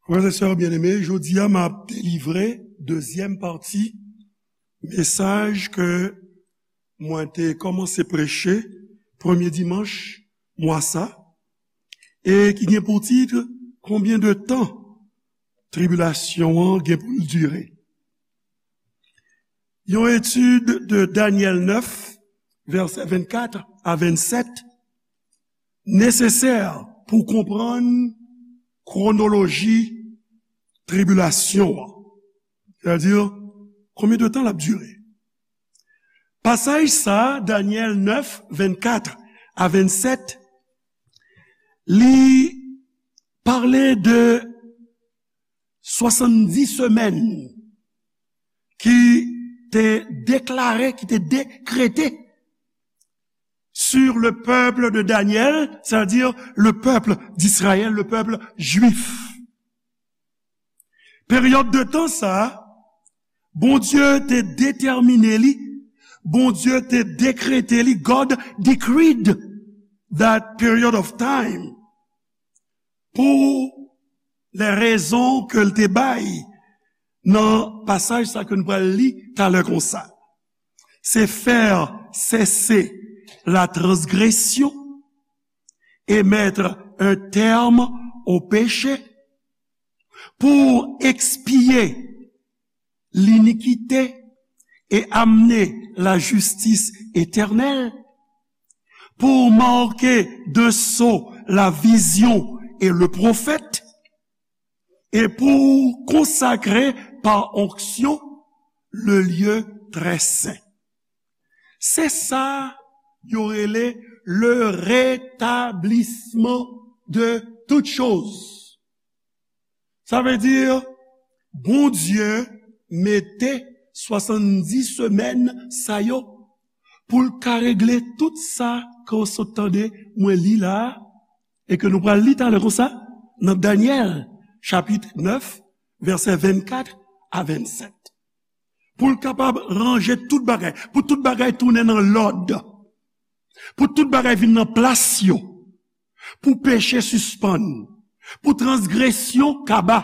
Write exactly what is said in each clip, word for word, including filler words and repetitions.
Frè e sè byeneme, jodi a m ap delivre dezyèm pati mesaj ke mwen te kòmanse preche premye dimanch mwa sa, e ki gen pou tit, Konbyen de tan tribilasyon an gen pou l dire? Yon etid de Danyèl nèf, vèsè vennkat a vennsèt, nesesè pou konprann kwonoloji tribilasyon an. Sètadi, konbyen de tan l ap dire? Pasaj sa a, Danyèl nèf, vennkat a vennsèt, li pale de swasanndis semèn ki te deklare, ki te dekrete sur le peuple de Daniel, c'est-à-dire le peuple d'Israël, le peuple juif. Peryòd de tan sa a, Bondye te detèmine li, Bondye te dekrete li, God decreed that period of time pou lè rezon ke l te bay nan pasaj sa ke nou pral li talè konsa. Se faire cesser la transgression et mettre un terme au péché, pour expier l'iniquité et amener la justice éternelle, pour marquer d'un sceau la vision et le prophète, et pour consacrer par onction le lieu très saint. Se sa yo rele le rétablissement de toutes choses. Sa vle di, Bondye mete swasanndis semèn sa yo pou l ka regle tout sa ke w sot tande mwen li la a, e ke nou pral li talè konsa nan Danyèl, chapit nèf, vèsè vennkat a vennsèt. Pou l kapab ranje tout bagay, pou tout bagay tounen nan lòd, pou tout bagay vin nan plas yo, pou peche sispann, pou transgresyon kaba,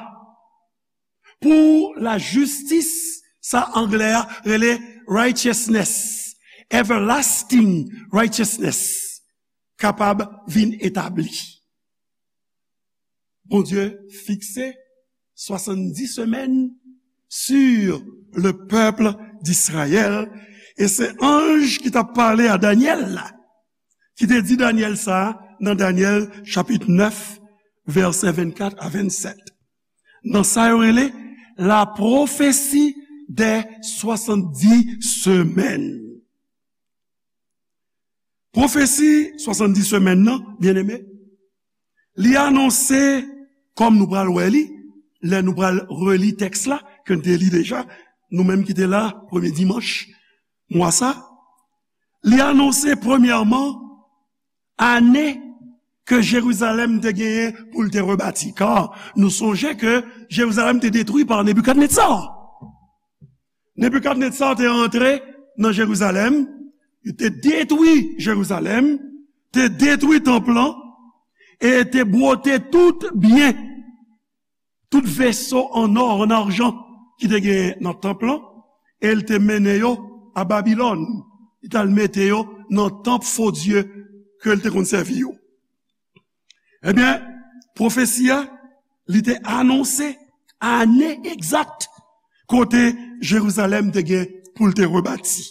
pou lajistis, sa anglè a rele righteousness, everlasting righteousness, kapab vin etabli. Bondye fikse swasanndis semèn sur le peuple d'Israël, e se anj ki t ap pale a Danyèl la, ki te di Danyèl sa nan Danyèl chapit nèf, vèsè vennkat a vennsèt. Nan sa yo rele la prophétie des soixante-dix semaines. Pwofesi swasanndis semèn nan, byeneme, li anonse, kòm nou pral wè li, lè nou pral reli tèks la, ke n te li deja, nou menm ki te la premye dimanch mwa sa, li anonse premyèman ane ke Jerizalèm te genyen pou l te rebati. Ka nou sonje ke Jerizalèm te detwi pa Nebikadnetza. Nebikadnetza te rantre nan Jerizalèm, li te detwi Jerizalèm, te detwi tanp lan, e te bwote tout byen, tout veso an nò, an ajan ki te genyen nan tanp lan, e l te mennen yo a Babilòn. Li t al mete yo nan tanp fo dye ke l te konn sèvi yo. Ebyen, pwofesi a, li te anonse ane egzak kote Jerizalèm te gen pou l te rebati.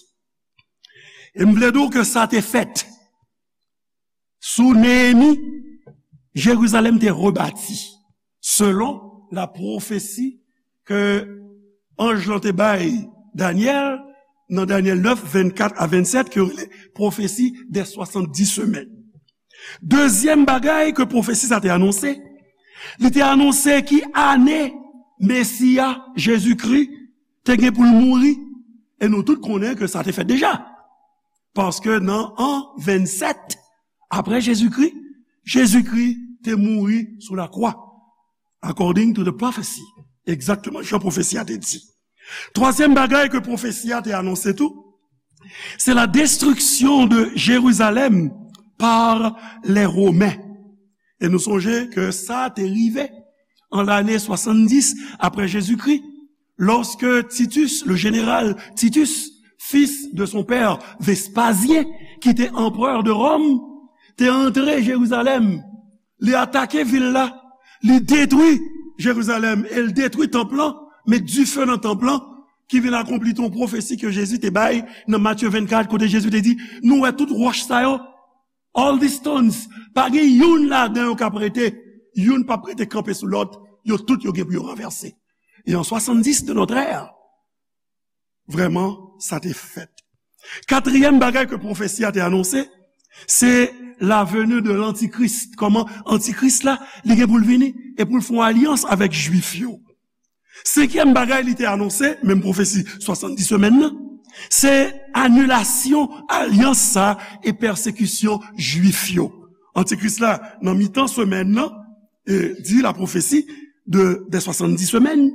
E m vle di w ke sa te fèt. Sou Neyemi, Jerizalèm te rebati, selon la pwofesi ke anj lan te bay Danyèl nan Danyèl nèf, vennkat a vennsèt, ke yo rele pwofesi dè swasanndis semèn. Dezyèm bagay ke pwofesi sa te anonse, li te anonse ki ane Mesi a, Jezikri, te gen pou l mouri, e nou tout konnen ke sa te fèt deja. Paske nan an vennsèt apre Jezikri, Jezikri te mouri sou lakwa, according to the prophecy, egzakteman jan pwofesi a te di. Twazyèm bagay ke pwofesi a te anonse tou, se la destruction de Jérusalem par les Romains. E nou sonje ke sa te rive an lane swasanndis apre Jezikri, lòske Titus, le général Titus, fils de son père Vespasien, ki te anperè de Ròm, te antre Jerizalèm, li atake vil la, li detwi Jerizalèm e li detwi tanp lan, met dife nan tanp lan, ki vin akonpli yon pwofesi ke Jezi te bay nan Matye vennkat, kote Jezi te di, nou wè tout wòch sa yo, all these stones, pa gen youn ladan yo k ap rete, youn p ap rete kanpe sou lòt, yo tout yo gen pou yo ranvèse. E an swasanndis de notre ère, vrèman, sa te fèt. Katriyèm bagay ke pwofesi a te anonse, se la venue de l'Antichrist. Kòman Antikris la, li gen pou l vini e pou l fè yon alyans avèk Jwif yo. Senkyèm bagay li te anonse, menm pwofesi swasanndis semèn nan, se anilasyon alyans sa e pèsekisyon Jwif yo. Antikris la, nan mitan semèn nan, e, di la pwofesi de, de swasanndis semèn,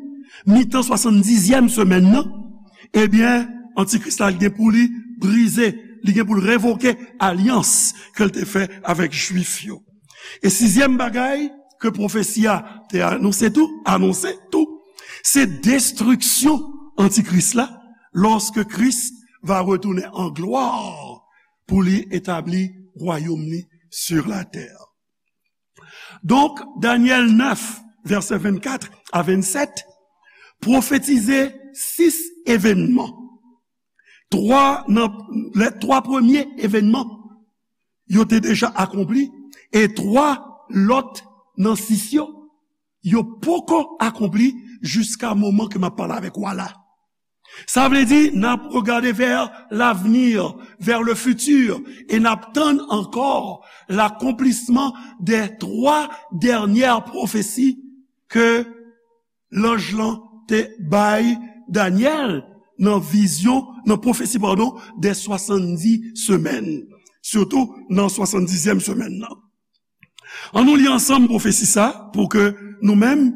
mitan swasanndizyèm semèn nan, ebyen, Antikris la, li gen pou li brize, li gen pou l revoke alyans ke l te fè avèk Jwif yo. E sizyèm bagay ke pwofesi a te anonse tou, anonse tou, se destriksyon Antikris la, lorsque Christ va retourner en gloire pour lui établir royaume li sur la terre. Donk, Danyèl nèf, vèsè vennkat a vennsèt, pwofetize sis evènman. Twa nan, lè twa premye evènman, yo te deja akonpli, e twa lòt nan sis yo, yo poko akonpli jiska moman ke m ap pale avèk w a la. Sa vle di, n ap regade vers l'avenir, vers le futur, e n ap tann ankò l'accomplissement des trois dernières prophéties ke lanj lan te bay Danyèl nan vizyon, nan pwofesi, padon, de swasanndis semèn, sitou nan swasanndizyèm semèn nan. Ann nou li ansanm pwofesi sa, pou ke nou menm,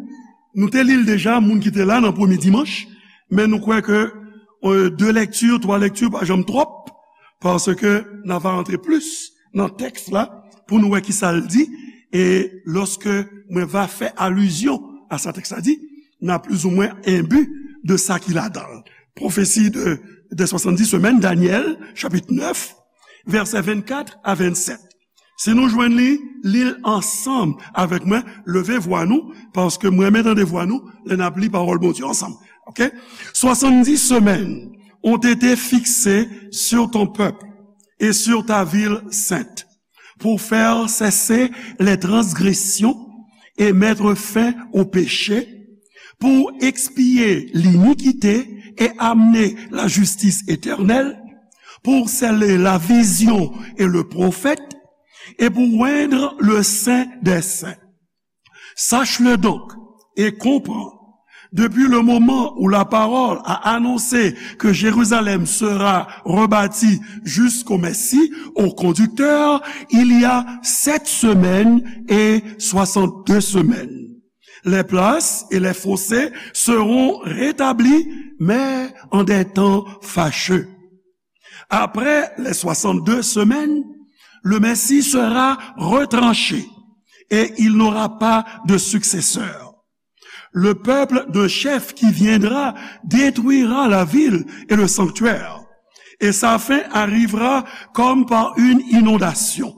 nou te li l deja, moun ki te la nan premye dimanch, men nou kwè ke, e, de lèkti, twa lèkti pa janm twòp, paske n a va rantre plis nan tèks la pou nou wè kisa l di, e lòske mwen va fè alizyon a sa tèks la di, n a plizoumwen enbi de sa ki ladan l. Pwofesi de, de swasanndis semèn, Danyèl, chapit nèf, vèsè vennkat a vennsèt. Si nou jwenn li, li l ansanm avèk mwen, leve vwa nou, paske mwen renmen tande vwa nou lè n ap li pawòl Bondye ansanm. Oke? Soixante-dix semaines ont été fixées sur ton peuple et sur ta ville sainte, pour faire cesser les transgressions et mettre fin au péché, pour expier l'iniquité et amener la justice éternelle, pour sceller la vision et le prophète, et pour oindre le Saint des Saints. Sache-le donc et comprends, depuis le moment où la parole a annoncé que Jérusalem sera rebâtie jusqu'au Messie, au conducteur, il y a sept semaines et soixante-deux semaines. Les places et les fossés seront rétablis, mais en des temps fâcheux. Après les soixante-deux semaines, le Messie sera retranché et il n'aura pas de successeur. Le peuple d'un chef qui viendra détruira la ville et le sanctuaire, et sa fin arrivera comme par une inondation.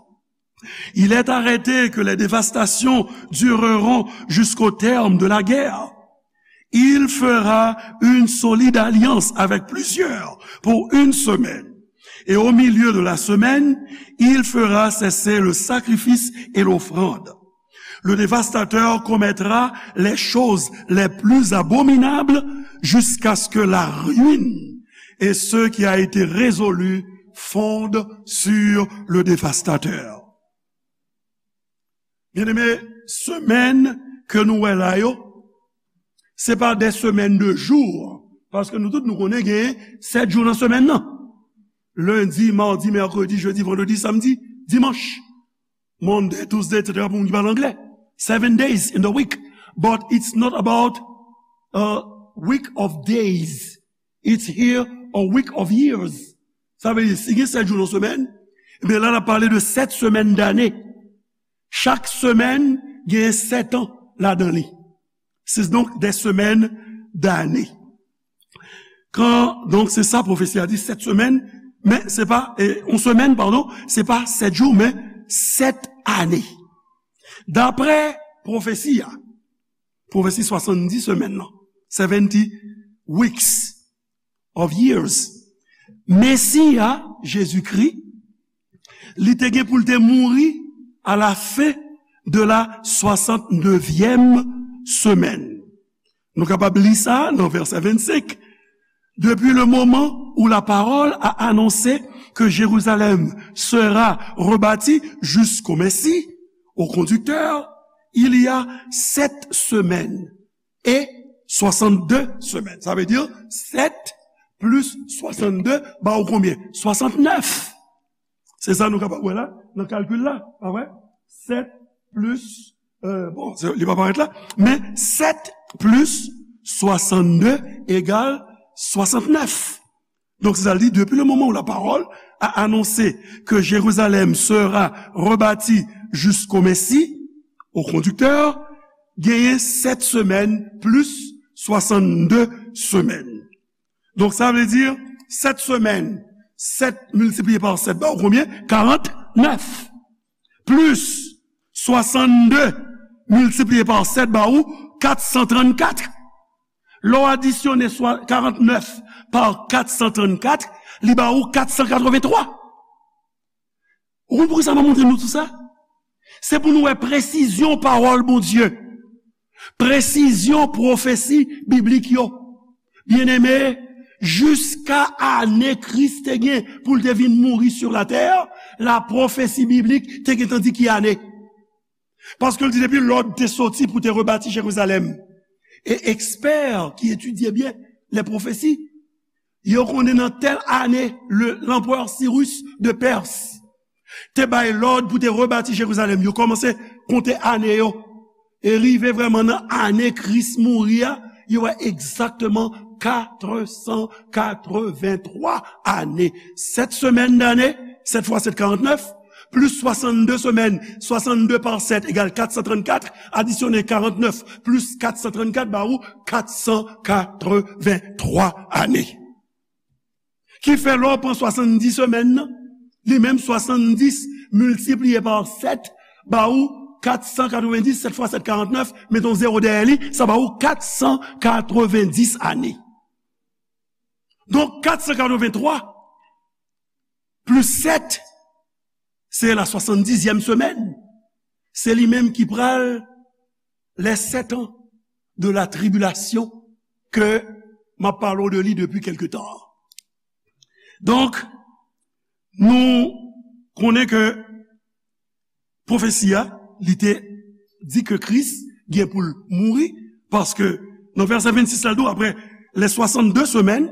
Il est arrêté que les dévastations dureront jusqu'au terme de la guerre. Il fera une solide alliance avec plusieurs pour une semaine. Et au milieu de la semaine, il fera cesser le sacrifice et l'offrande. Le dévastateur commettra les choses les plus abominables jusqu'à ce que la ruine et ce qui a été résolu fondent sur le dévastateur. Byeneme, semèn ke nou wè la yo, se pa de semèn de jou, paske nou tout nou konnen gen sèt jou nan semèn nan. Lendi, madi, mèkredi, jedi, vandredi, samdi, dimanch. Monday, Tuesday, et cetera pou moun ki pale anglè. Seven days in the week. But it's not about a week of days. It's here a week of years. Sa vle di, si gen sèt jou nan semèn, ebyen la n ap pale de sèt semèn dane. Chak semèn gen sèt an ladan li. C'est donc des semaines d'années. Kan, donk, se sa pwofesi a di, sèt semèn, men se pa, e, yon semèn, padon, se pa sèt jou, men sèt ane. Daprè pwofesi a, pwofesi swasanndis semèn nan, seventy weeks of years, Mesi a, Jezikri, li te gen pou l te mouri à la fin de la soixante-neuvième semaine. Nou kapab li sa nan vèsè vennsenk. Depuis le moment où la parole a annoncé que Jérusalem sera rebâtie jusqu'au Messie, au conducteur, il y a sept semaines et soixante-deux semaines. Ça veut dire sept plus soixante-deux ba ou konbyen? Soixante-neuf. Se sa nou kapab wè la, nan kalkil la, pa vre? Sèt plis, euh, bon, se, li pa parèt la, men sèt plis swasanndde egal swasannnèf. Donk, se sa l di, depuis le moment où la parole a annoncé que Jérusalem sera rebâtie jusqu'au Messie, au conducteur, genyen sèt semèn plis swasanndde semèn. Donk, sa vle di, sèt semèn, sèt miltipliye pa sèt ba ou konbyen? Karantnèf. Plis swasanndde miltipliye pa sèt ba ou kat san trannkat. Lè w adisyone swa karantnèf pa kat san trannkat, li ba ou kat san katrevenntwa. Ou konn poukisa m ap montre nou tou sa? Se pou nou wè presizyon pawòl Bondye, presizyon pwofesi biblik yo. Byeneme, jiska ane Kris te gen pou l te vin mouri sou latè, la pwofesi biblik te gentan di ki ane. Paske l di depi lòd te soti pou te rebati Jerizalèm. E ekspè ki etidye byen lè pwofesi, yo konnen nan tèl ane, le, lanperè Sirus de Pès te bay lòd pou te rebati Jerizalèm. Yo kòmanse konte ane yo. E rive vrèman nan ane Kris mouri a, yo wè egzakteman katresankatreventwa ane. Sèt semèn dane, sèt fwa sèt karantnèf, plis swasanndde semèn, swasanndde pa sèt egal kat san trannkat, adisyone karantnèf plis kat san trannkat ba ou kat san katrevenntwa ane. Ki fè lè w pran swasanndis semèn nan, li menm swasanndis miltipliye pa sèt ba ou kat san katrevenndis, sèt fwa sèt karantnèf, mete yon zewo dèyè li, sa ba ou kat san katrevenndis ane. Donk, kat san katrevenntwa plis sèt, se la swasanndizyèm semèn. Se li menm ki pral les sept ans de la tribulation ke m ap pale w de li depi kèlke tan. Donk, nou konnen ke pwofesi a, li te di ke Kris gen pou l mouri, paske nan vèsè vennsis la, l di w, après les soixante-deux semaines,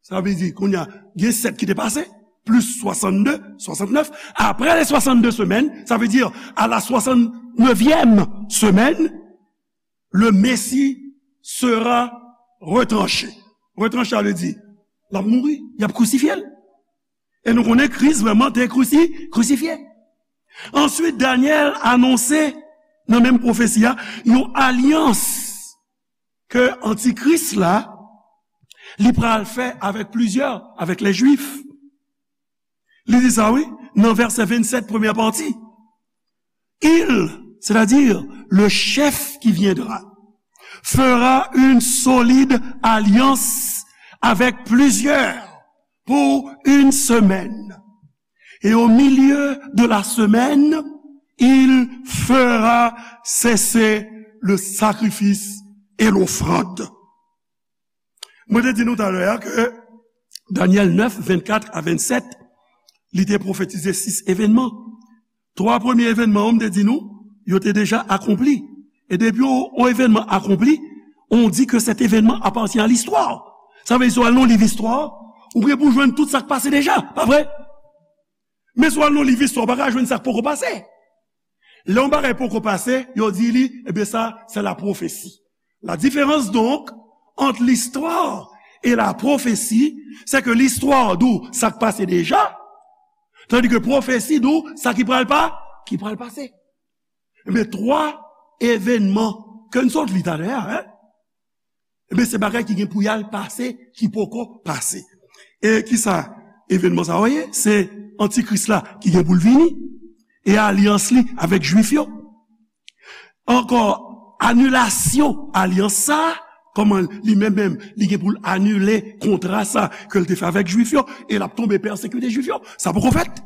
sa vle di, kounye a, gen sèt ki te pase, plis swasanndde, swasannnèf, après les soixante-deux semaines, ça veut dire à la soixante-neuvième semaine, le Messie sera retranché. Retranché, sa vle di, l ap mouri, y ap krisifye l. E nou konnen Kris vrèman te krisi-, krisifye. Answit, Danyèl anonse nan menm pwofesi a, yon alyans ke antikris la, li pral fè avèk plizyè, avèk lè Jwif. Li di sa, wi, nan vèsè vennsèt, premyè pati. Il, c'est-à-dire le chef qui viendra, fera une solide alliance avec plusieurs pour une semaine. Et au milieu de la semaine, il fera cesser le sacrifice et l'offrande. Mwen te di nou talè a ke Danyèl nèf, vennkat a vennsèt, li te pwofetize sis evènman. Twa premye evènman yo, m te di nou, yo te deja akonpli. E depi yon, yon evènman akonpli, on dit que cet événement appartient à l'histoire. Sa vle di, si w al nan liv istwa, ou gen pou jwenn tout sa k pase deja, pa vre? Men si w al nan liv istwa, ou pa ka jwenn sa k poko pase. Lè yon bagay poko pase, yo di li, ebyen sa, c'est la prophétie. La différence donc entre l'histoire et la prophétie, c'est que l'histoire di w sa k pase deja, tandis que pwofesi di w sa ki pral pa, ki pral pase. Ebyen, twa evènman ke n sot li talè a, en? Ebyen, se bagay ki gen pou y al pase, ki poko pase. E kisa evènman sa yo ye? Se Antikris la ki gen pou l vini, e alyans li avèk Jwif yo. Ankò, anilasyon alyans sa, kòman li menm menm, li gen pou l anile kontra sa ke l te fè avèk Jwif yo, e l ap tonbe pèsekite Jwif yo. Sa poko fèt.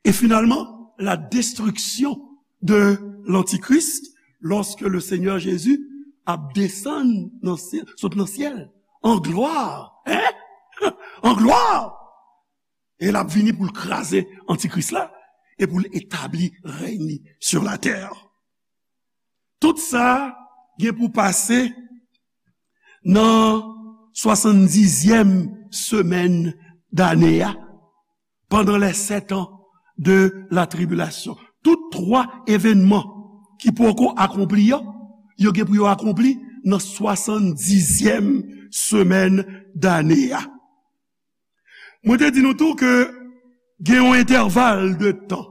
Et finalement, la destruction de l'Antichrist, lorsque le Seigneur Jésus ap desann nan syèl, sot nan syèl, an glwa, en? An glwa! E l ap vini pou l kraze Antikris la, e pou l etabli rèy li sur la terre. Tout sa gen pou pase nan swasanndizyèm semèn dane a, pendant les sept ans de la tribulation. Tout twa evènman ki poko akonpli yo, yo gen pou yo akonpli nan swasanndizyèm semèn dane a. Mwen te di nou tou ke gen yon entèval de tan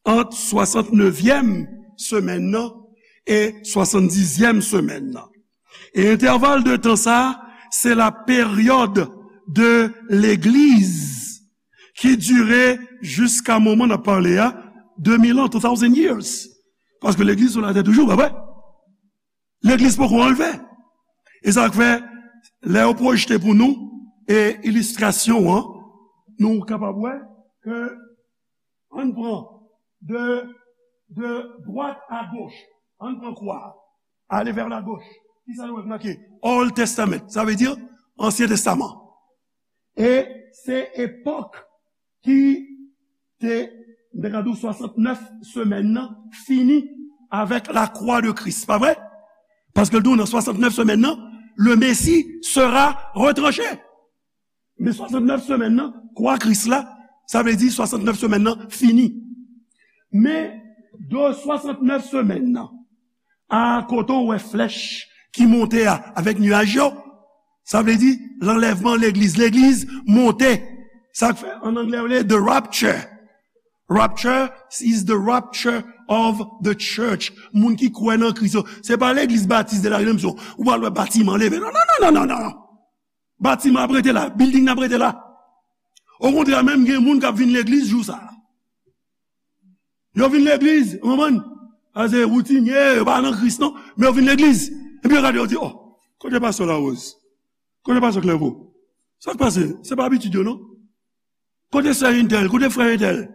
ant swasantnevyèm semèn nan e swasanndizyèm semèn nan. E entèval de tan sa, se la période de l'Église ki dire jiska moman n ap pale a, de mil an, two thousand years. Paske legliz sou latè toujou, pa vre? Legliz poko anlve. E sa k fè, lè yo pwojte pou nou, e ilistrasyon an, nou kapab wè ke, ann pran de, de dwat a goch, ann pran kwa, ale vè la goch. Kisa nou wè k make? Old Testament, sa vle di Ansyen Testaman. E se epòk ki te, m te ka di w, swasantnèf semèn nan fini avèk la croix de Christ, pa vre? Paske l di w nan swasantnèf semèn nan, le Messie sera retranché. Men swasantnèf semèn nan, kwa Kris la, sa vle di swasantnèf semèn nan fini. Men de swasantnèf semèn nan, a kote w wè flèch ki monte a, avèk nyaj yo, sa vle di lanlèvman legliz. Legliz monte. Sa k fè, an anglè, yo rele the rapture. Rapture is the rapture of the church. Moun ki kwè nan Kris yo. Se pa legliz batis de la redanmsyon. Ou pral wè batiman leve. Non, non, non, non, non, non. Batiman ap rete la. Building nan ap rete la. Okontrè, menm gen moun k ap vin legliz jou sa a. Yo vin legliz, ou konprann? A se woutinye, yo pa nan Kris non, men yo vin legliz. Epi yo gade, yo di, "Oh, kote pastè Larose? Kote pastè Clairvaux? Sa k pase? Se pa abitid yo non. Kote sè entèl? Kote frè entèl?"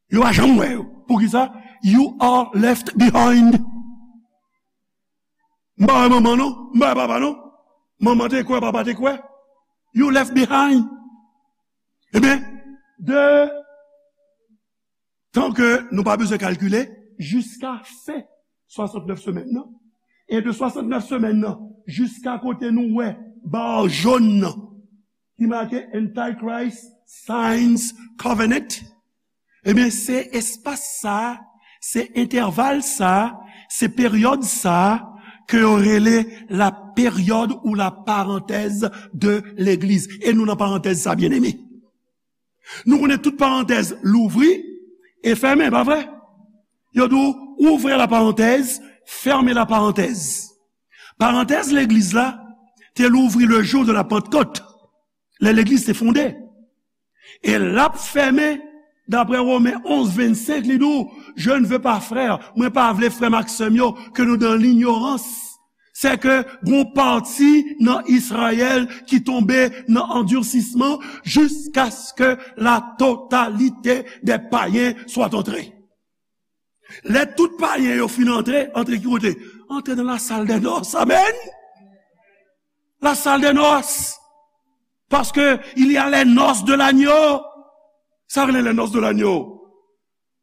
Yo pa janm wè yo. Poukisa? You are left behind. M pa wè manman non, m pa wè papa non. Manman te kwè, papa te kwè. You left behind. Ebyen, de tan ke nou pa bezwen kalkile, jiska fen swasantnèf semèn nan, e de swasantnèf semèn nan jiska kote nou wè ba jòn nan, ki make Antichrist Signs Covenant, ebyen, se espas sa a, se entèval sa a, se peryòd sa a ke yo rele la période ou la parenthèse de l'Église. E nou nan parantèz sa, byeneme. Nou konnen tout parantèz louvri e fèmen, pa vre? Yo di w, ouvrez la parenthèse, fermez la parenthèse. Parantèz legliz la te louvri le jour de la Pentecôte, lè legliz te fonde. E l ap fèmen, daprè Women onz vennsenk, li di w, "Je ne veux pas, frères, mwen pa vle frè m ak sè m yo, que nous dans l'ignorance." Sè ke gon pati nan Izrayèl ki tonbe nan andirsisman jusqu'à ce que la totalité des païens soit entrée. Lè tout payen yo fin antre, antre ki kote? Antre nan la salle des noces. Amèn. La salle des noces. Parce que il y a les noces de l'agneau. Sa rele les noces de l'agneau.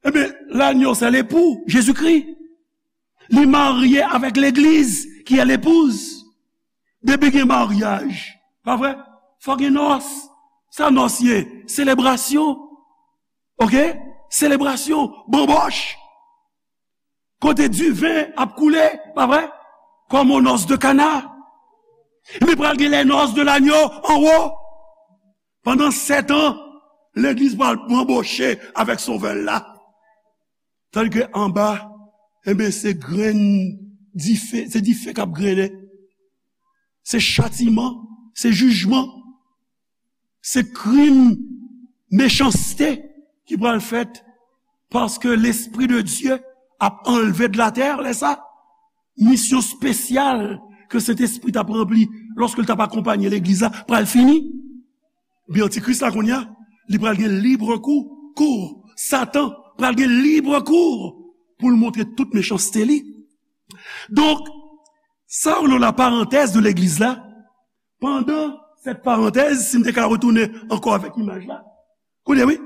Ebyen, l'agneau, c'est l'époux, Jésus-Christ. Li marye avèk legliz, ki è lepouz. Depi gen maryaj, pa vre? Fò gen nòs. Sa nòs ye? Selebrasyon. Oke? Selebrasyon, banbòch. Kote diven ap koule, pa vre? Comme aux noces de Cana. Men pral gen les noces de l'agneau anwo. Pandan sèt an, legliz pral banboche avèk Sovè l la. Tandike anba, Enben, se grenn dife, se dife k ap grennen. Se chatiman, se jijman, se krim, mechanste ki pral fèt, paske Lespri de Dye ap anlve de latè lè sa. Misyon espesyal ke Sentespri t ap ranpli lòske l t ap akonpanye legliz la pral fini. Ebyen, antikris la kounye a, li pral gen libre kou, kou. Satan pral gen libre kou pou l montre tout mechanste li. Donk, sa yo rele la parantèz de legliz la. Pandan sèt parantèz, si m te ka retounen ankò avèk imaj la, koute wi,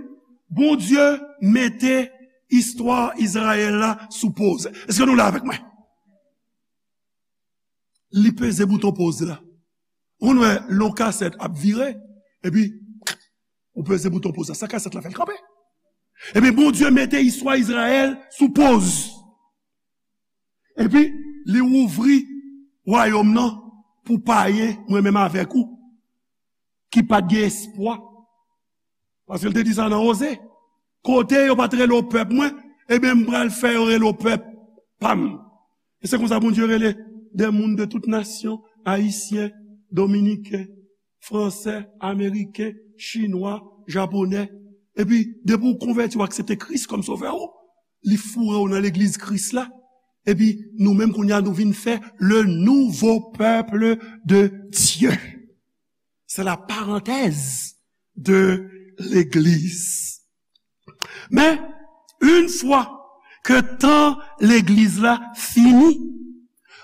Bondye mete istwa Izrayèl la sou poz. Èske nou la avèk mwen? Li peze bouton poz la. Ou konn wè lè yon kasèt ap vire, epi ou peze bouton poz la. Sa kasèt la fè l kanpe. Epi Bondye mete istwa Izrayèl sou poz. Epi li ouvri wayòm nan pou payen, mwen menm avèk ou, ki pa t gen espwa. Paske l te di sa nan Oze. Kote yo pa t rele w pèp mwen, ebyen, m pral fè yo rele w pèp pa m. E se konsa Bondye rele de moun de tout nasyon, Ayisyen, Dominiken, Fransè, Ameriken, Chinwa, Japonè. Epi, depi w konvèti, w aksepte Kris kòm Sovè w, li foure w nan legliz Kris la. Epi, nou menm kounye a, nou vin fè le nouveau peuple de Dieu. C'est la parenthèse de l'église. Men, yon fwa ke tan legliz la fini,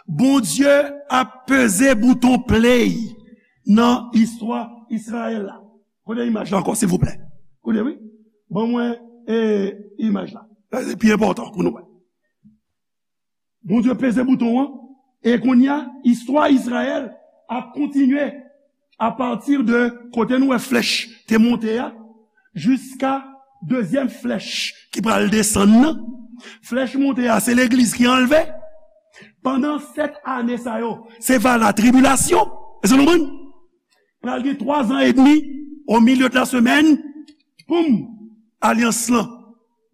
Bondye ap peze bouton play nan istwa Izrayèl la. Kote imaj la ankò, silvouplè? Kote, wi? Ban mwen, e, imaj la. Sa se pi enpòtan pou nou wè. Bondye peze bouton an, e kounye a, istwa Izrayèl ap kontinye apati de kote nou wè flèch te monte a, jiska dezyèm flèch ki pral desann nan. Flèch monte a, se legliz ki anlve. Pandan sèt ane sa yo, se va la tribilasyon. Èske nou konprann? Pral gen twa zan edmi, au milieu de la semaine, poum, alyans lan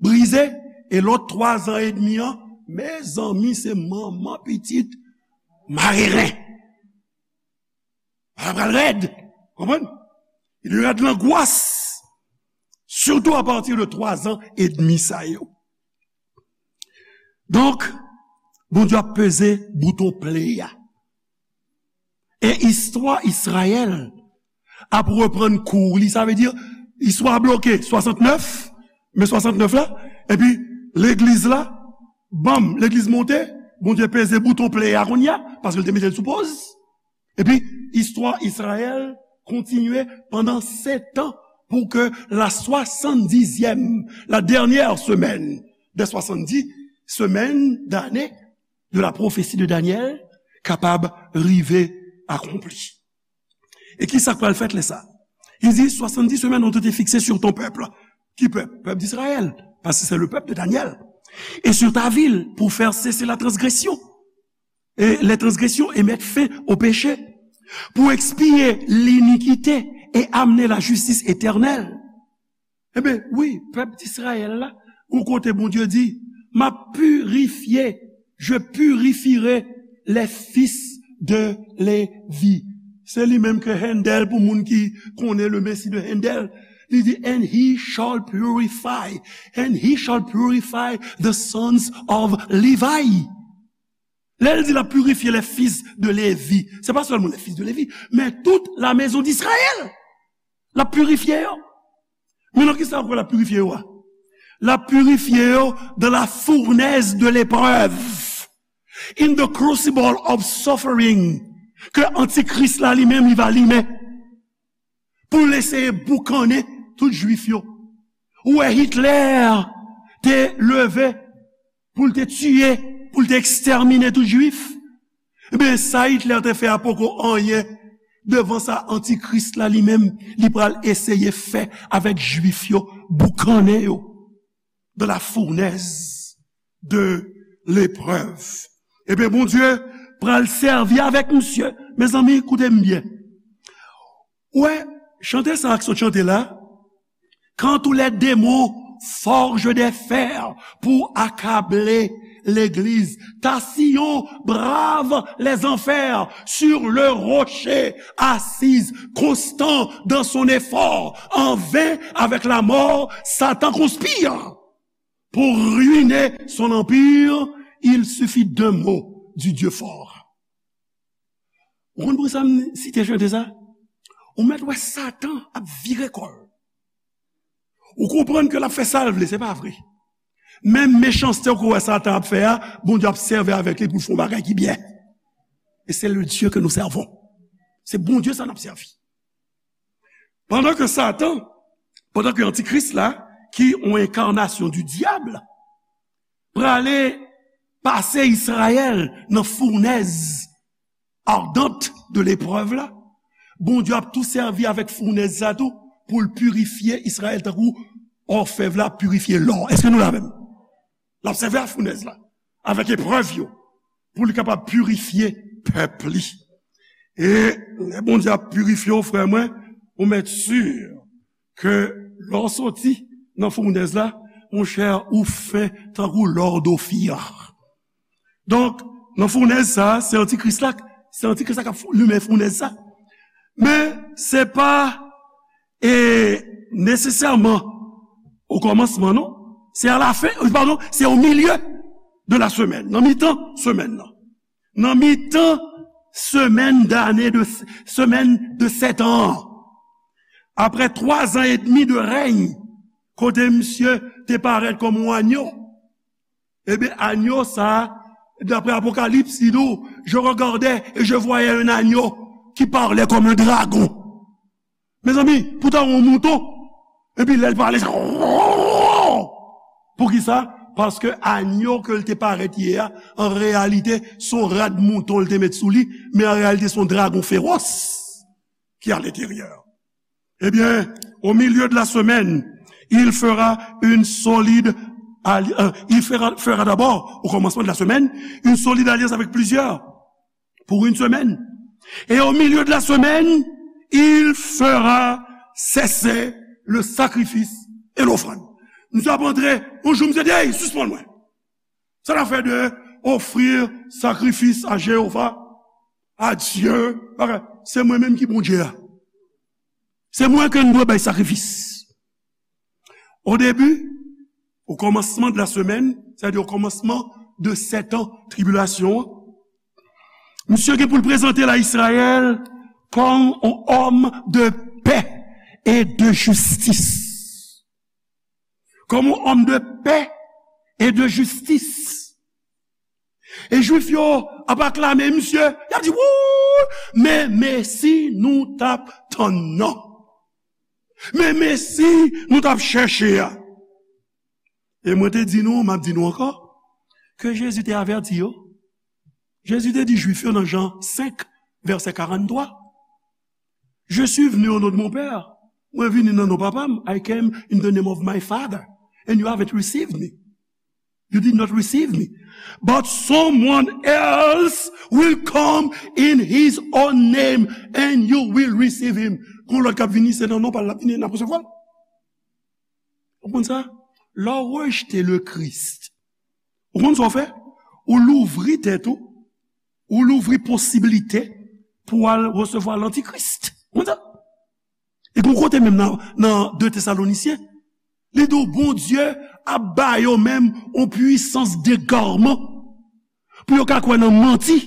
brize, e lòt twa zan edmi an, mezanmi, se manman pitit mare ren. Sa pral rèd. Konprann? Il y aura de l'angoisse, surtout à partir de twa zan edmi sa yo. Donk, Bondye ap peze bouton play a. E istwa Izrayèl ap reprann kou li. Sa vle di, istwa a bloke swasantnèf, me swasantnèf la, epi legliz la, banm, legliz monte, Bondye peze bouton play a kounye a, paske l te mete l sou poz. Epi, istwa Izrayèl kontinye pandan sèt an pou ke la swasanndizèm, la dernière semaine des soixante-dix semaines d'année de la prophétie de Daniel kapab rive akonpli. E ki sa k pral fèt lè sa? Il dit, soixante-dix semaines ont été fixées sur ton peuple. Ki pèp? Pèp d'Israël, parce que c'est le peuple de Daniel. Et sur ta ville, pour faire cesser la transgression et les transgressions et mettre fin au péché, pour expier l'iniquité et amener la justice éternelle. Ebyen, wi, pèp Izrayèl la, yon kote Bondye di, m ap pirifye, je purifierai les fils de Lévi. Se li menm ke Handel, pou moun ki konnen le Messie de Handel, li di, and he shall purify, and he shall purify the sons of Levi. Lè l di l ap pirifye les fils de Lévi, se pa sèlman les fils de Lévi, men tout la maison d'Israël. L ap pirifye yo. Men nan ki sa ankò l ap pirifye yo a? L ap pirifye yo dans la fournaise de l'épreuve, in the crucible of suffering, ke antikris la li menm li va limen pou l eseye boukannen tout jwif yo. Ou wè Hitler te leve pou l te tiye, pou l te ekstèmine tout jwif. Ebyen, sa Hitler te fè a poko anyen devan sa antikris la li menm, li pral eseye fè avèk jwif yo, boukannen yo dans la fournaise de l'épreuve. Ebyen, Bondye pral sèvi avèk misye. Mezanmi, koute m byen. Ou wè, chante sa ak sot chante la, quand tous les démons forgent des fers pour accabler L'église, ta sillon brave les enfers sur le rocher, assise, constant dans son effort, en vain avec la mort, Satan conspire pour ruiner son empire, il suffit d'un mot du Dieu fort. Ou konn poukisa m site chante sa? Ou mèt wè Satan ap vire kò l. Ou konprann ke l ap fè sa l vle, se pa vre. Menm mechanste ou wè Satan ap fè a, Bondye ap sèvi avèk li pou l fè yon bagay ki byen. E se le Dieu que nous servons. Se Bondye sa n ap sèvi. Pandan ke Satan, pandan ke Antikris la, ki yon enkarnasyon di dyab, prale pase Izrayèl nan founèz ardent de leprèv la, Bondye ap tou sèvi avèk founèz sa tou pou l pirifye Izrayèl tankou òfèv la pirifye lò. Èske nou la menm? L ap sèvi ak founèz la, avèk eprèv yo, pou li kapab pirifye pèp li. E lè Bondye ap pirifye w, frè mwen, ou mèt si ke lè w soti nan founèz la, monchè, ou fen tankou lò d Ofir. Donk, nan founèz sa a, se antikris la, se antikris la k ap fou- limen founèz sa. Men, se pa, e, nesesèman okòmansman, non. Se alafen, padon, se o milye de la semèn, nan mitan semèn nan. Nan mitan semèn dane de, semèn de sèt an an. Apre twa zan edmi de rèy, kote misye te parèt kòm yon anyo, ebyen, anyo sa a, daprè Apokalips, li di w, je regardais et je voyais un agneau qui parlait comme un dragon. Mezanmi, poutan yon mouton, epi lè l pale, sa, poukisa? Paske anyo ke l te parèt ye a, an reyalite, se yon rad mouton l te met sou li, men an reyalite, se yon dragon fewòs ki alenteryè. Ebyen, au milieu de la semaine, il fera une solide alli- euh, il fera, fera d'abord, au commencement de la semaine, une solide alliance avec plusieurs pour une semaine. Et au milieu de la semaine, il fera cesser le sacrifice et l'offrande. Misye ap antre, yon jou misye di, "Hey, sispann mwen. Sa n ap fè de offrir sacrifice à Jéhovah, à Dieu, bagay. Se mwen menm ki Bondye a. Se mwen ke n dwe bay sakrifis." O debi, o kòmansman de la semèn, sètadi o kòmansman de sèt an tribilasyon an, misye gen pou l prezante l a Izrayèl kòm yon òm de pè e de jistis. Kòm yon òm de pè e de jistis. E Jwif yo ap aklame misye, y ap di, "Wouy, men Mesi nou t ap tann nan. Men Mesi nou t ap chèche a." E mwen te di nou, m ap di nou ankò, ke Jezi te avèti yo. Jezi te di Jwif yo nan Jan senk, vèsè karanntrwa, "Je suis venu au nom de mon Père." Mwen vini nan non Papa m. "I came in the name of my Father, and you haven't received me." You did not receive me. But someone else will come in his own name, and you will receive him. Gon lòt k ap vini, se nan non pa l l ap vini, n ap resevwa l. Ou konn sa? Lè w rejte le Christ, ou konn sa w fè? Ou louvri tèt ou, ou louvri posiblite pou w al resevwa lantikris. Ou konn sa? E gon kote menm nan, nan de Tesalonisyen, li di w Bondye ap ba yo menm yon pwisans degarman pou yo ka kwè nan manti.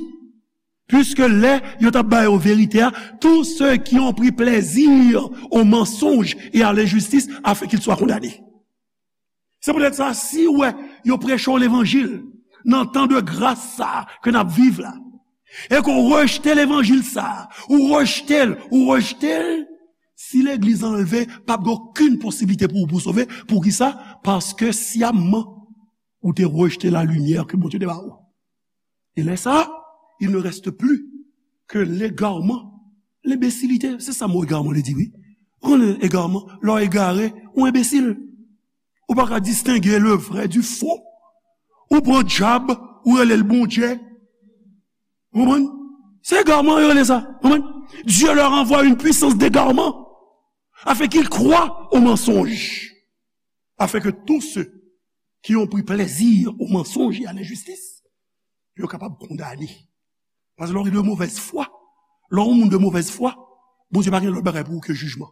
Puiske lè yo t ap ba yo verite a, tous ceux qui ont pris plaisir au mensonge et à l'injustice, afin qu'ils soient condamnés. Se poutèt sa, si w wè yo preche w levanjil nan tan de gras sa a ke n ap viv la, e ke w rejte levanjil sa a, ou rejte l, ou rejte l, si legliz anlve, p ap gen okenn posiblite pou ou pou sove. Poukisa? Paske syamman, ou te rejte lalimyè ke Bondye te ba ou. E lè sa a, il ne reste plus que l'égarement, l'imbécilité. Se sa mo egarman li di, wi. Ou konnen egarman, lè w egare, ou enbesil. Ou pa ka distenge le vrai du faux. Ou pran dyab, ou rele l Bondye. Ou konprann? Se egarman yo rele sa. Ou konprann? Dieu leur envoie une puissance d'égarement, afin qu'ils croient au mensonge, afin que tous ceux qui ont pris plaisir au mensonge et à l'injustice, yo kapab kondane. Paske lè w de movèz fwa, lè w moun de movèz fwa, Bondye pa gen lòt bagay pou ou ke jijman.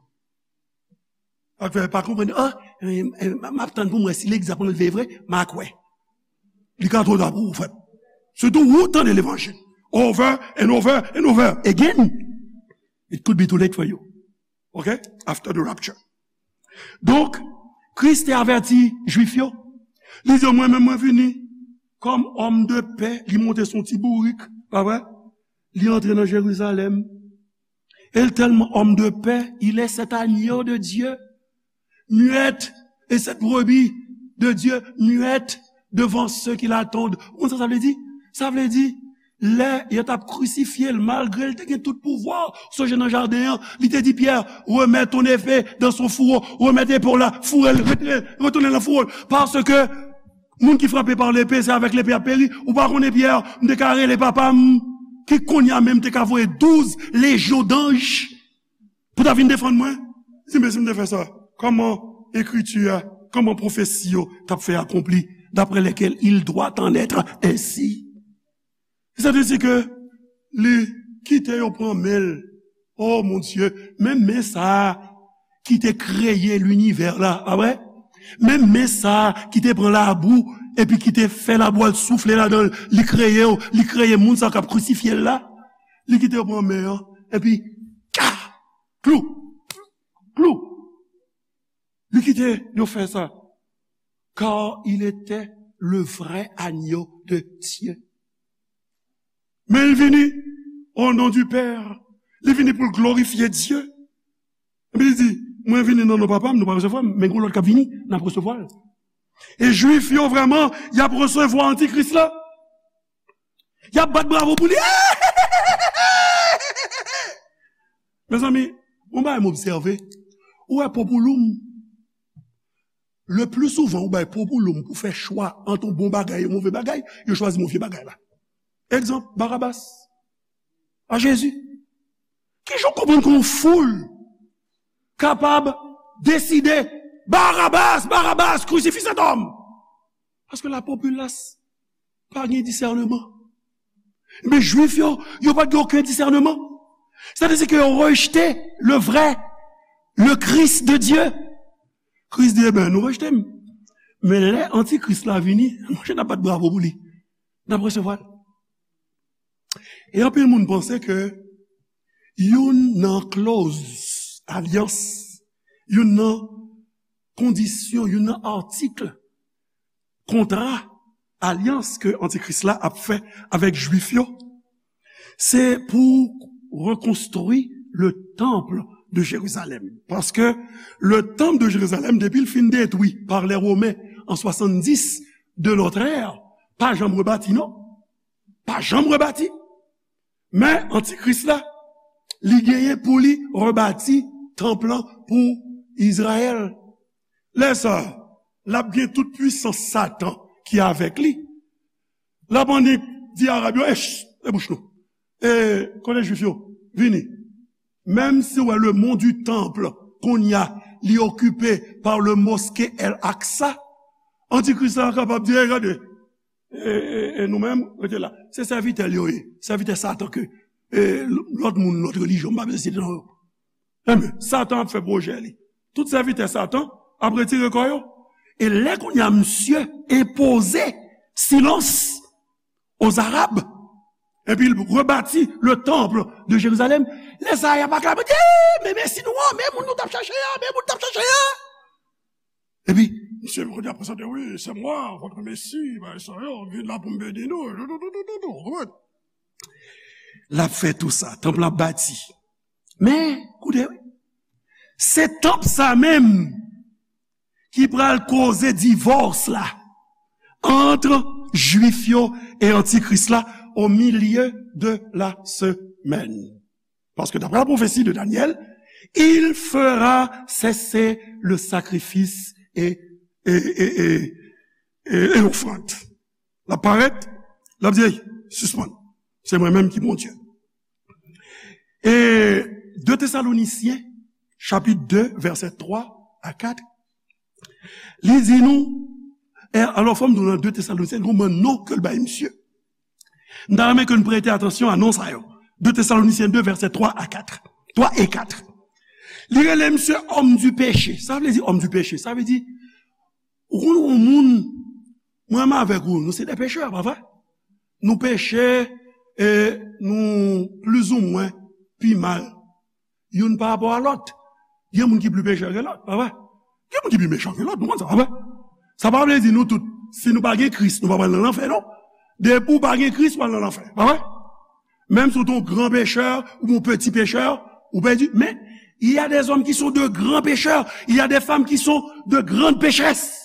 Sa k fè pa konprann, ah, eh, eh, m ap tann pou m wè si legliz ap anlve vre, m a kwè. Li ka twò ta pou ou, frè. Sitou ou tande levanjil. Over and over and over again. It could be too late for you. Ok? After the rapture. Donk, Kris te avèti Jwif yo. Li di yo, mwen menm, mwen vini kòm òm de pè. Li monte sou ti bourik, pa vre? Li antre nan Jerizalèm. Et tellement homme de paix, il est cet agneau de Dieu, muette, et cette brebis de Dieu, muette devant ceux qui l'attendent. Ou konn sa sa vle di? Sa vle di, lè yo t ap krisifye l, malgre l te gen tout pouvwa, sonje nan jaden an, li te di Pyè, remets ton épée dans son fourreau, remèt epe w la, foure l, retire, retounen nan fouwo l, paske moun ki frape pa lepe, se avèk lepe y ap peri. Ou pa konnen, Pyè, m te ka rele papa m, ki kounye a menm te ka voye douz lejyon danj pou ta vin defann mwen. Di, men si m te fè sa, kòman ekriti a, kòman pwofesi yo t ap fè akonpli, d'après lesquels il doit en être ainsi? Sa vle di ke li kite yo pran men l. Oh mon Dieu, menm men sa a ki te kreye linivè la, pa vre? Menm men sa a ki te pran labou epi ki te fè labou al soufle ladan l, li kreye yo, li kreye moun sa k ap krisifye l la. Li kite yo pran men an, epi, ka! Klou! Klou! Li kite yo fè sa. Car il était le vrai agneau de Dieu. Men li vini au nom du Père. Li vini pou l glorifye Dye. Epi li di, mwen vini nan non papa m, nou pa resevwa m, men gon lòt k ap vini, n ap resevwa l. E Jwif yo vrèman, y ap resevwa antikris la. Y ap bat bravo pou li. Mezanmi, yon bagay m obsève. Ou wè, popouloum, le pli souvan ou bay popouloum pou fè chwa ant yon bon bagay e yon move bagay, yo chwazi move bagay la. Egzanp, Barabas a Jezi. Kijan w konprann ke yon foul kapab deside, Barabas, Barabas, crucifie cet homme? Paske la popilas pa gen disèneman. Men Jwif yo, yo pa t gen okenn disèneman. Sa vle di ke yo rejte le vrai, le Christ de Dieu. Kris di, eben, nou rejte m. Men lè antikris la vini, monchè, n ap bat bravo pou li. N ap resevwa l. E anpil moun panse ke youn nan klòz alyans, youn nan kondisyon, youn nan atik kontra, alyans ke antikris la ap fè avèk Jwif yo, se pou rekonstwi le temple de Jérusalem. Paske le temple de Jérusalem, depi l fin detwi pa lè Women an swasanndis de notre ère, pa janm rebati, non. Pa janm rebati. Men antikris la, li genyen pou li rebati tanp lan pou Izrayèl. Lè sa a, l ap gen tout pwisans Satan ki avèk li. L ap annik di Arab yo, ech, e bouch nou. E kote Jwif yo? Vini. Menm si w wè le mont du temple, kounye a, li okipe pa le mosquée El Aqsa, antikris la kapab di, e gade, e, e, e nou menm, rete la. Se sèvitè l yo ye. Sèvitè Satan ke, e, lòt moun, lòt relijyon, m pa bezwen site non yo. Enben, Satan ap fè pwojè li. Tout sèvitè Satan ap retire kò yo. E lè kounye a misye enpoze silans aux Arabes, epi l rebati le temple de Jérusalem, lè sa a y ap aklame, di, men Mesi nou an, men moun nou t ap chache a, men moun nou t ap chache a. Epi, misye kounye a prezante, wi, c'est moi, votre Messie, bagay sa yo, m vin la pou m beni nou, tou, tou, tou, tou, tou, tou, konprann? L ap fè tou sa, tanp lan ap bati. Men, koute, wi. Se tanp sa menm ki pral koze divòs la ant Jwif yo e antikris la au milieu de la semaine. Paske d'après la prophétie de Daniel, il fera cesser le sacrifice et, et, et, et, et, et l'offrande. L ap parèt, l ap di, ey, sispann. Se mwen menm ki Bondye. E de Tesalonisyen, chapit de, vèsè twa a kat, li di nou, E alò, fò m di w nan de Tesalonisyen, gen yon bann non ke l bay misye. M ta renmen ke n prete atansyon a non sa yo. De Tesalonisyen de, vèsè twa a kat. Twa e kat. Li rele misye homme du péché. Sa vle di homme du péché? Sa vle di, ou konn yon moun, mwen menm avèk ou, nou se de pechè, pa vre? Nou peche, e nou plizoumwen pi mal. Youn pa rapò a lòt. Gen moun ki pli pechè ke lòt, pa vre? Gen moun ki pi mechan ke lòt, nou konn sa, pa vre? Sa pa vle di nou tout, si nou pa gen Kris, nou pa pral nan lanfè, non. Depi w pa gen Kris, w pral nan lanfè, pa vre? Menm si w te yon gran pechè, ou yon peti pechè, ou pèdi. Men, il y a des hommes qui sont de grands pécheurs, il y a des femmes qui sont de grandes pécheresses.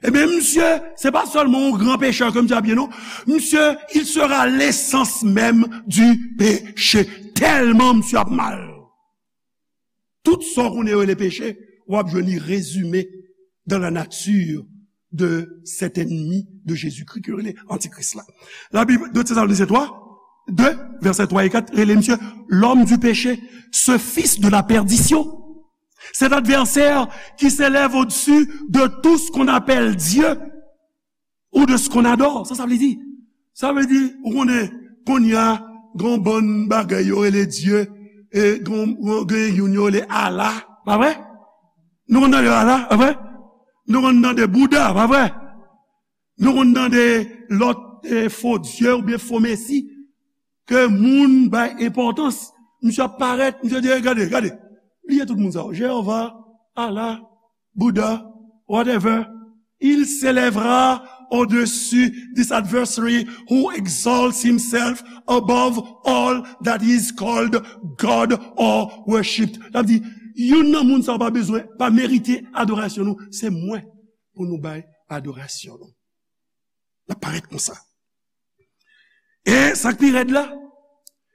Ebyen, misye, se pa sèlman yon gran pechè ke misye ap ye, non. Misye, il sera l'essence même du péché. Tèlman misye ap mal. Tout sa w konnen yo rele peche, w ap jwenn li rezime dans la nature de cet ennemi de Jésus-Christ ki yo rele antikris la. La Bible, de Thessaloniciens trois, deux, versets trois et quatre, rele misye l'homme du péché, ce fils de la perdition. Cet adversaire qui s'élève au-dessus de tout ce qu'on appelle Dieu ou de ce qu'on adore. Sa sa vle di? Sa vle di, ou konnen, kounye a, gen yon bann bagay yo rele Dye, e gen, gen youn yo rele Allah, pa vre? Nou konn tande Allah, pa vre? Nou konn tande Bouda, pa vre? Nou konn tande lòt, e, fo dye oubyen fo mesi ke moun bay enpòtans. Misye ap parèt, misye di, "Gade, gade." Bliye tout moun sa yo. Jewova, Allah, Bouda, whatever. Il s'élèvera au-dessus this adversary who exalts himself above all that is called God or worshipped. L ap di, youn nan moun sa yo pa bezwen, pa merite adorasyon nou. Se mwen pou nou bay adorasyon nou. L ap parèt konsa. E sa k pi rèd la,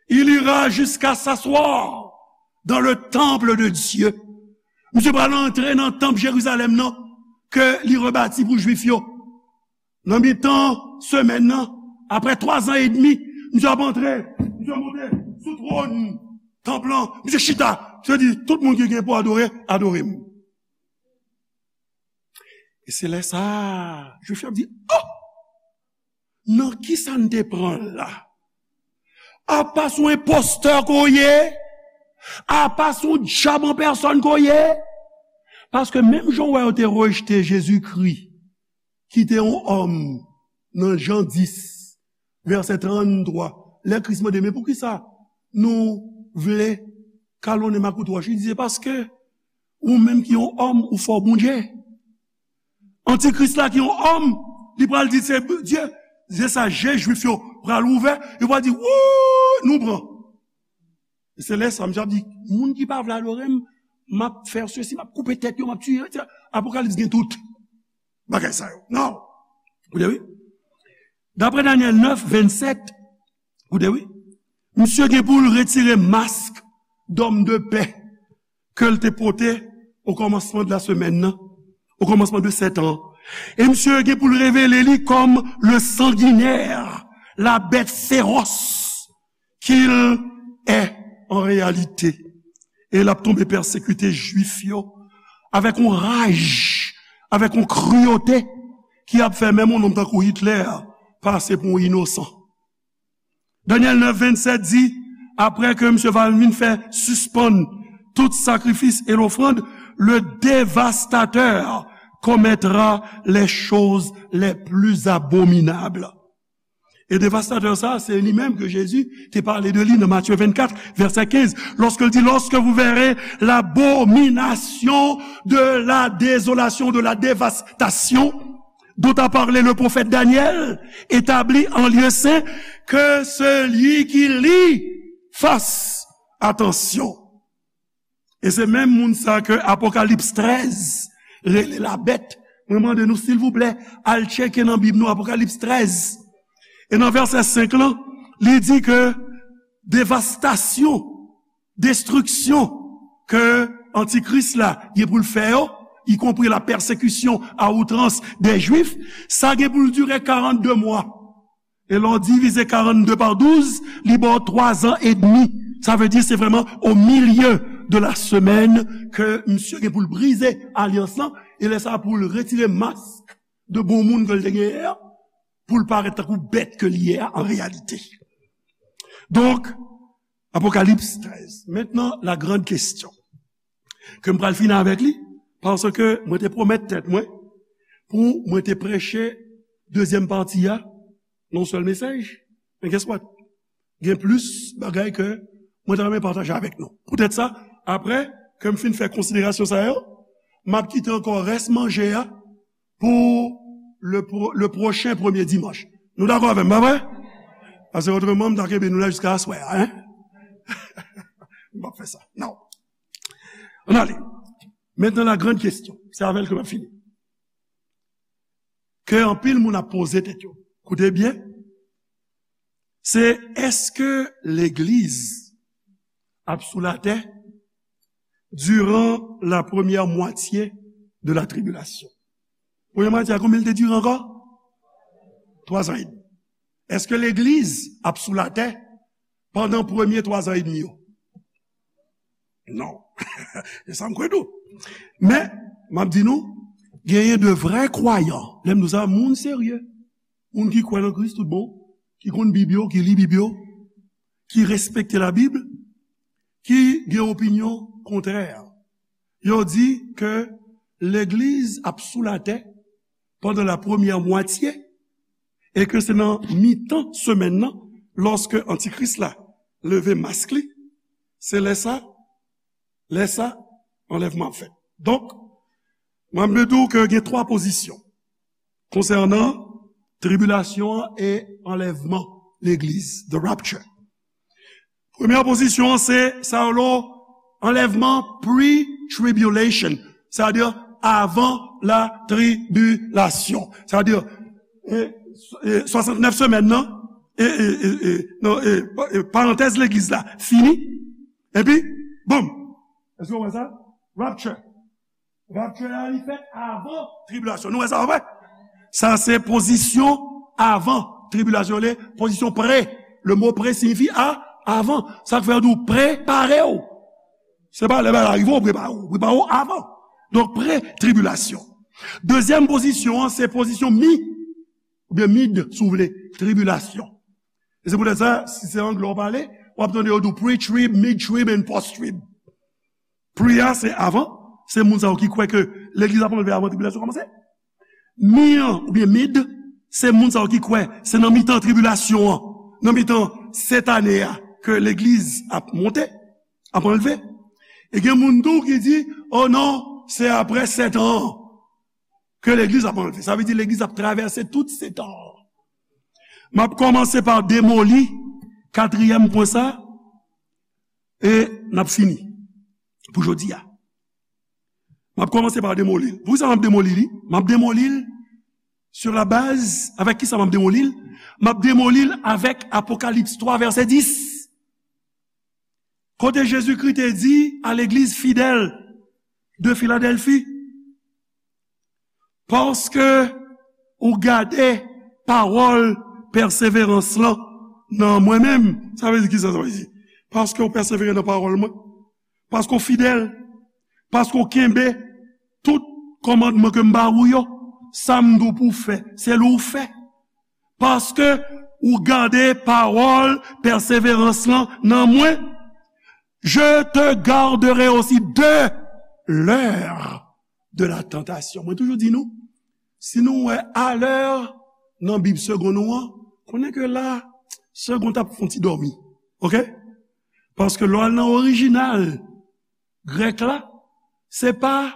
il ira jusqu'à s'asseoir dans le temple de Dieu. Misye pral antre nan tanp Jerizalèm nan ke li rebati pou Jwif yo. Nan mitan semèn nan, apre twa zan edmi, misye ap antre, misye monte sou twòn tanp lan, misye chita, misye di, "Tout moun ki gen pou adore, adore m." E se lè sa a, Jwif yo ap di, "Oh! Nan kisa n te pran l la? Apa se yon enpostè ke w ye? Apa se yon dyab an pèsòn ke w ye?" Paske menm jan w wè yo te rejte Jezikri, ki te yon òm, nan Jan dis, vèsè tranntwa, lè Kris mande, "Men poukisa nou vle kalonnen m ak wout wòch?" Li di, "Se paske ou menm ki yon òm, ou fè w Bondye." Antikris la ki yon òm, li pral di se Dye. Se sa, je Jwif yo pral ouvè, yo pral di, "Wouy, nou pran." E se lè sa, misye ap di, "Moun ki pa vle adore m, m ap fè sesi, m ap koupe tèt yo, m ap tiye yo, etsetera." Apokalips gen tout bagay sa yo. Non. Ou tande, wi. Daprè Danyèl nèf, vennsèt, ou tande, wi. Misye gen pou l retire mask d'homme de paix ke l te pote o kòmansman de la semèn nan, o kòmansman de sèt an. E misye gen pou l revele li kòm le sanguinaire, la bête féroce qu'il est en réalité. E l ap tonbe pèsekite Jwif yo avèk yon raj, avèk yon kriyote ki ap fè menm yon nonm tankou Hitler pase pou yon inosan. Danyèl nèf vennsèt di, apre ke misye va vin fè sispann tout sakrifis e lofrann, le dévastateur commettra les choses les plus abominables. E devastatè sa, se li menm ke Jezi te pale de li nan Matye vennkat, vèsè kenz, lòske l di, "Lorsque vous verrez l'abomination de la désolation, de la dévastation, dont a parlé le prophète Daniel, établie en lieu saint, que celui qui lit fasse attention." E se menm moun sa ke Apokalips trèz rele la bèt. Mwen mande nou, silvouplè, al tcheke nan Bib nou Apokalips trèz. E nan vèsè senk lan, li di ke devastasyon, destriksyon ke Antikris la gen pou l fè yo, ikonpri la pèsekisyon a outrans dè Jwif, sa gen pou l dire karannde mwa. E lè w divize karannde pa douz, li ba w twa zan edmi. Sa vle di se vrèman au milieu de la semaine ke misye gen pou l brize alyans lan, e lè sa a pou l retire mask de bon moun ke l te genyen an, pou l parèt tankou bèt ke l ye a an reyalite. Donk, Apokalips trèz. Maintenant, la grande question ke m pral fini avèk li, paske mwen te pwomèt tèt mwen pou mwen te preche dezyèm pati a nan yon sèl mesaj. Men guess what? Gen plis bagay ke mwen ta renmen pataje avèk nou. Poutèt sa, apre ke m fin fè konsiderasyon sa yo, m ap kite ankò rès manje a pou le, pro- le pwochen premye dimanch. Nou dakò avè m, pa vre? Paske otreman, m ta kenbe nou la jiska aswè a, en? M p ap fè sa. Non. Ann ale. Maintenant, la grande question. Se avè l ke m ap fini. Ke anpil moun ap poze tèt yo. Koute byen. Se èske legliz ap sou latè durant la première moitié de la tribulation? Premye mwatye a, konbyen l te dire ankò? Twa zan edmi. Èske legliz ap sou latè pandan premye twa zan edmi yo? Non. Se sa m kwè tou. Men, m ap di nou, genyen de vrè kwayan. Lè m di w sa, moun serye. Moun ki kwè nan Kris tout bon, ki konn Bib yo, ki li Bib yo, ki respekte Labib, ki gen opinyon kontrè. Yo di ke legliz ap sou latè pandan la premyè mwatye, e ke se nan mitan semèn nan, lòske Antikris la leve mask li, se lè sa, lè sa, anlèvman ap fèt. Donk, mwen, m vle di w ke gen twa pozisyon konsènan tribilasyon an e anlèvman legliz, the rapture. Premyè pozisyon an se sa yo lo anlèvman pre-tribulation, sètadi avan la tribilasyon. Sètadi, e, e, swasantnèf semèn nan, e, e, e, e, non, e, e, parantèz legliz la fini, epi, boum! Èske w wè sa? Rapture. Rapture la, li fèt avan tribilasyon. Nou wè sa, pa vre? Sa se pozisyon avan tribilasyon, le pozisyon pre. Le mo pre siyifi a, avan. Sa k fè yo di w prepare w. Se pa lè bagay la rive, w prepare w. Prepare w avan. Donk, pre-tribilasyon. Dezyèm pozisyon an, se pozisyon mi, oubyen mid, si w vle, tribilasyon. E se poutèt sa, si se anglè w pale, w ap tande yo di w pre-trib, mid-trib and post-trib. Pre a, se avan, se moun sa yo ki kwè ke legliz ap anlve avan tribilasyon kòmanse. Mi an, oubyen mid, se moun sa yo ki kwè se nan mitan tribilasyon an, nan mitan sèt ane a, ke legliz ap monte, ap anlve. E gen moun tou ki di, o non, se apre sèt an an ke legliz ap anlve. Sa vle di legliz ap travèse tout sèt an an. M ap kòmanse pa demoli katriyèm pwen sa, e n ap fini pou jodi a. M ap kòmanse pa demoli l. Poukisa m ap demoli li? M ap demoli l sur la base, avèk kisa m ap demoli l? M ap demoli l avèk Apokalips twa, vèsè dis. Kote Jezikri te di a legliz fidèl de Filadèlfi, paske ou gade pawòl pèseverans lan nan mwen menm. Sa vle di kisa sa vle di? Paske ou pèsevere nan pawòl mwen. Paske w fidèl. Paske w kenbe tout kòmandman ke m ba ou yo. Sa m di w pou w fè, se li w fè. Paske ou gade pawòl pèseverans lan nan mwen, je te garderai aussi de l'heure de la tentation. Mwen toujou di nou, si nou wè a lè nan Bib segonn ou an, konnen ke la, segonn ap fè yon ti dòmi. Oke? Paske lè w al nan orijinal grèk la, se pa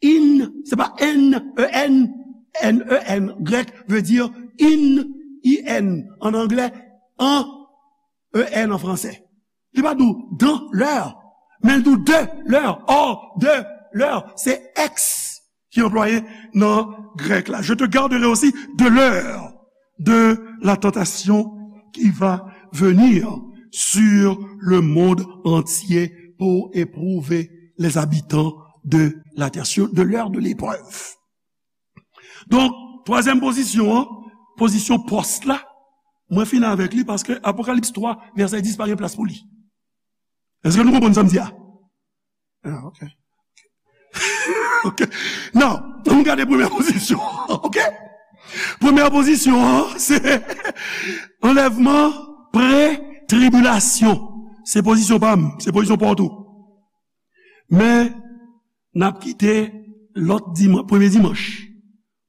in, se pa N E N, N E N, grèk vle di in, I N, an anglè, an, E N an fransè. Li pa di w dans l'heure, men l di w de l'heure, hors de l'heure. Se ex ki anplwaye nan grèk la. Je te garderai aussi de l'heure de la tentation qui va venir sur le monde entier pour éprouver les habitants de la terre, sur, de l'heure de l'épreuve. Donk, twazyèm pozisyon an, pozisyon pòs la, mwen fini avèk li paske Apokalips twa, vèsè dis pa gen plas pou li. Èske nou konprann sa m di a? Ah, ok. Ok. Now, ann gade premyè pozisyon. Ok? Premyè pozisyon an, se anlèvman pre-tribilasyon. Se pozisyon pa m, se pozisyon pa w tou. Men, n ap kite lòt dimanch, premye dimanch,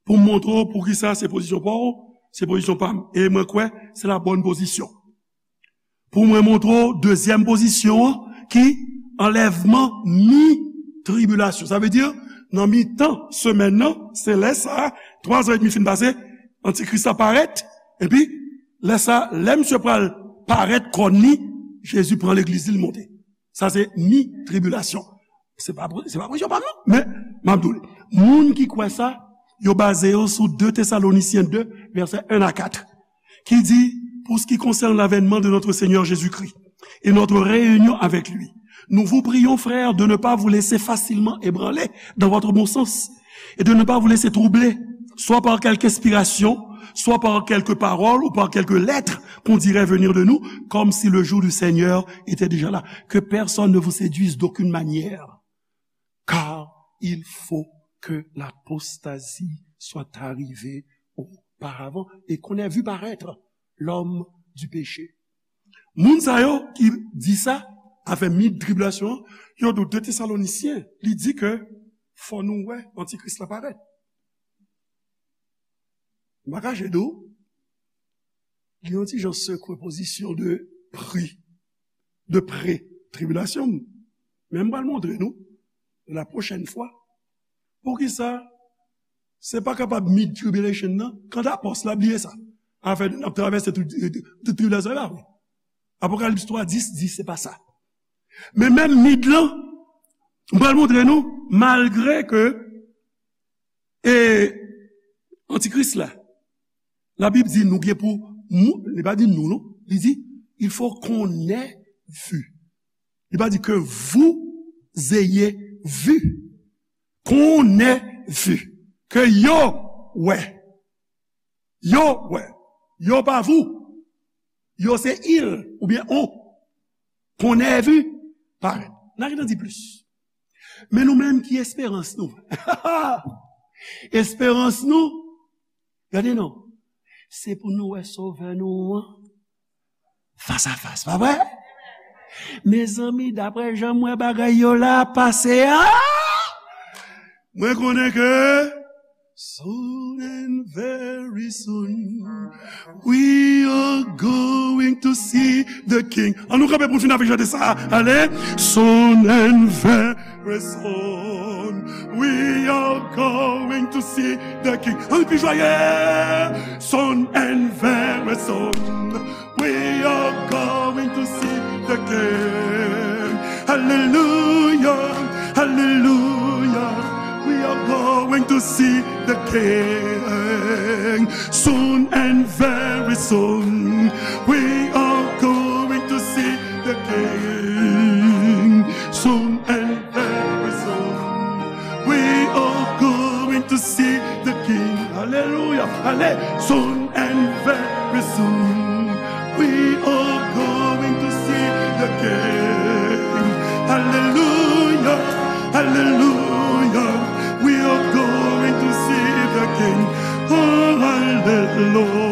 pou m montre w poukisa se pozisyon pa w, se pozisyon pa m. E mwen kwè, se la bòn pozisyon. Pou mwen montre w dezyèm pozisyon an, ki anlèvman mi tribilasyon. Sa vle di, nan mitan semèn nan, se lè sa a, twa zan edmi fin pase, Antikris la parèt, epi lè sa a, lè misye pral parèt kòn li, Jezi pran legliz li, l monte. Sa se mi tribilasyon. Se pa, se pa pozisyon pa m non, men m ap di w li. Moun ki kwè sa, yo baze yo sou de Tesalonisyen de, vèsè en a kat, ki di, pour ce qui concerne l'avènement de notre Seigneur Jésus-Christ et notre réunion avec lui, nous vous prions, frères, de ne pas vous laisser facilement ébranler dans votre bon sens et de ne pas vous laisser troubler, soit par quelque inspiration, soit par quelque parole ou par quelque lettre qu'on dirait venir de nous, comme si le jour du Seigneur était déjà là. Que personne ne vous séduise d'aucune manière, car il faut que l'apostasie soit arrivée auparavant et qu'on ait vu paraître l'homme du péché. Moun sa yo ki di sa, afè mi tribilasyon an, yo di de Tesalonisyen, li di ke fò nou wè Antikris la parèt. M pa kache di w, li yon ti jan sekwe pozisyon de pre, de pre-tribilasyon. Men m pral montre nou, la pwochèn fwa, poukisa se pa kapab mid-tribulation nan, kanta pòs la bliye sa. Afè n ap travèse tout, tout tribilasyon la, wi. Apokalips twa dis di se pa sa. Men menm mid lan, m pral montre nou, malgre ke, e, Antikris la, Labib di nou gen pou, mou-, li pa di nou, non. Li di, il faut qu'on ait vu. Li pa di que vous ayez vu. Qu'on ait vu. Ke yo wè. Yo wè. Yo pa vous. Yo se il oubyen on. Qu'on ait vu parèt. N a gentan di plis. Men nou menm ki esperans nou? Esperans nou, gade non, se pou nou wè Sovè nou an fas a fas, pa vre? Mezanmi, daprè jan m wè bagay yo la pase a, mwen konnen ke soon and very soon, we are going to see the King. An nou kanpe pou n fin avèk chante sa. Ale. Soon and very soon, we are going to see the King. An nou pi jwaye. Soon and very soon, we are going to see the King. Hallelujah, hallelujah. We are going to see the King. Soon and very soon, we are going to see the King. Soon and very soon, we are going to see the King. Hallelujah. Ale. Soon and very soon, we are going to see the King. Hallelujah, hallelujah, we are going to see the King. Oh, hallelujah.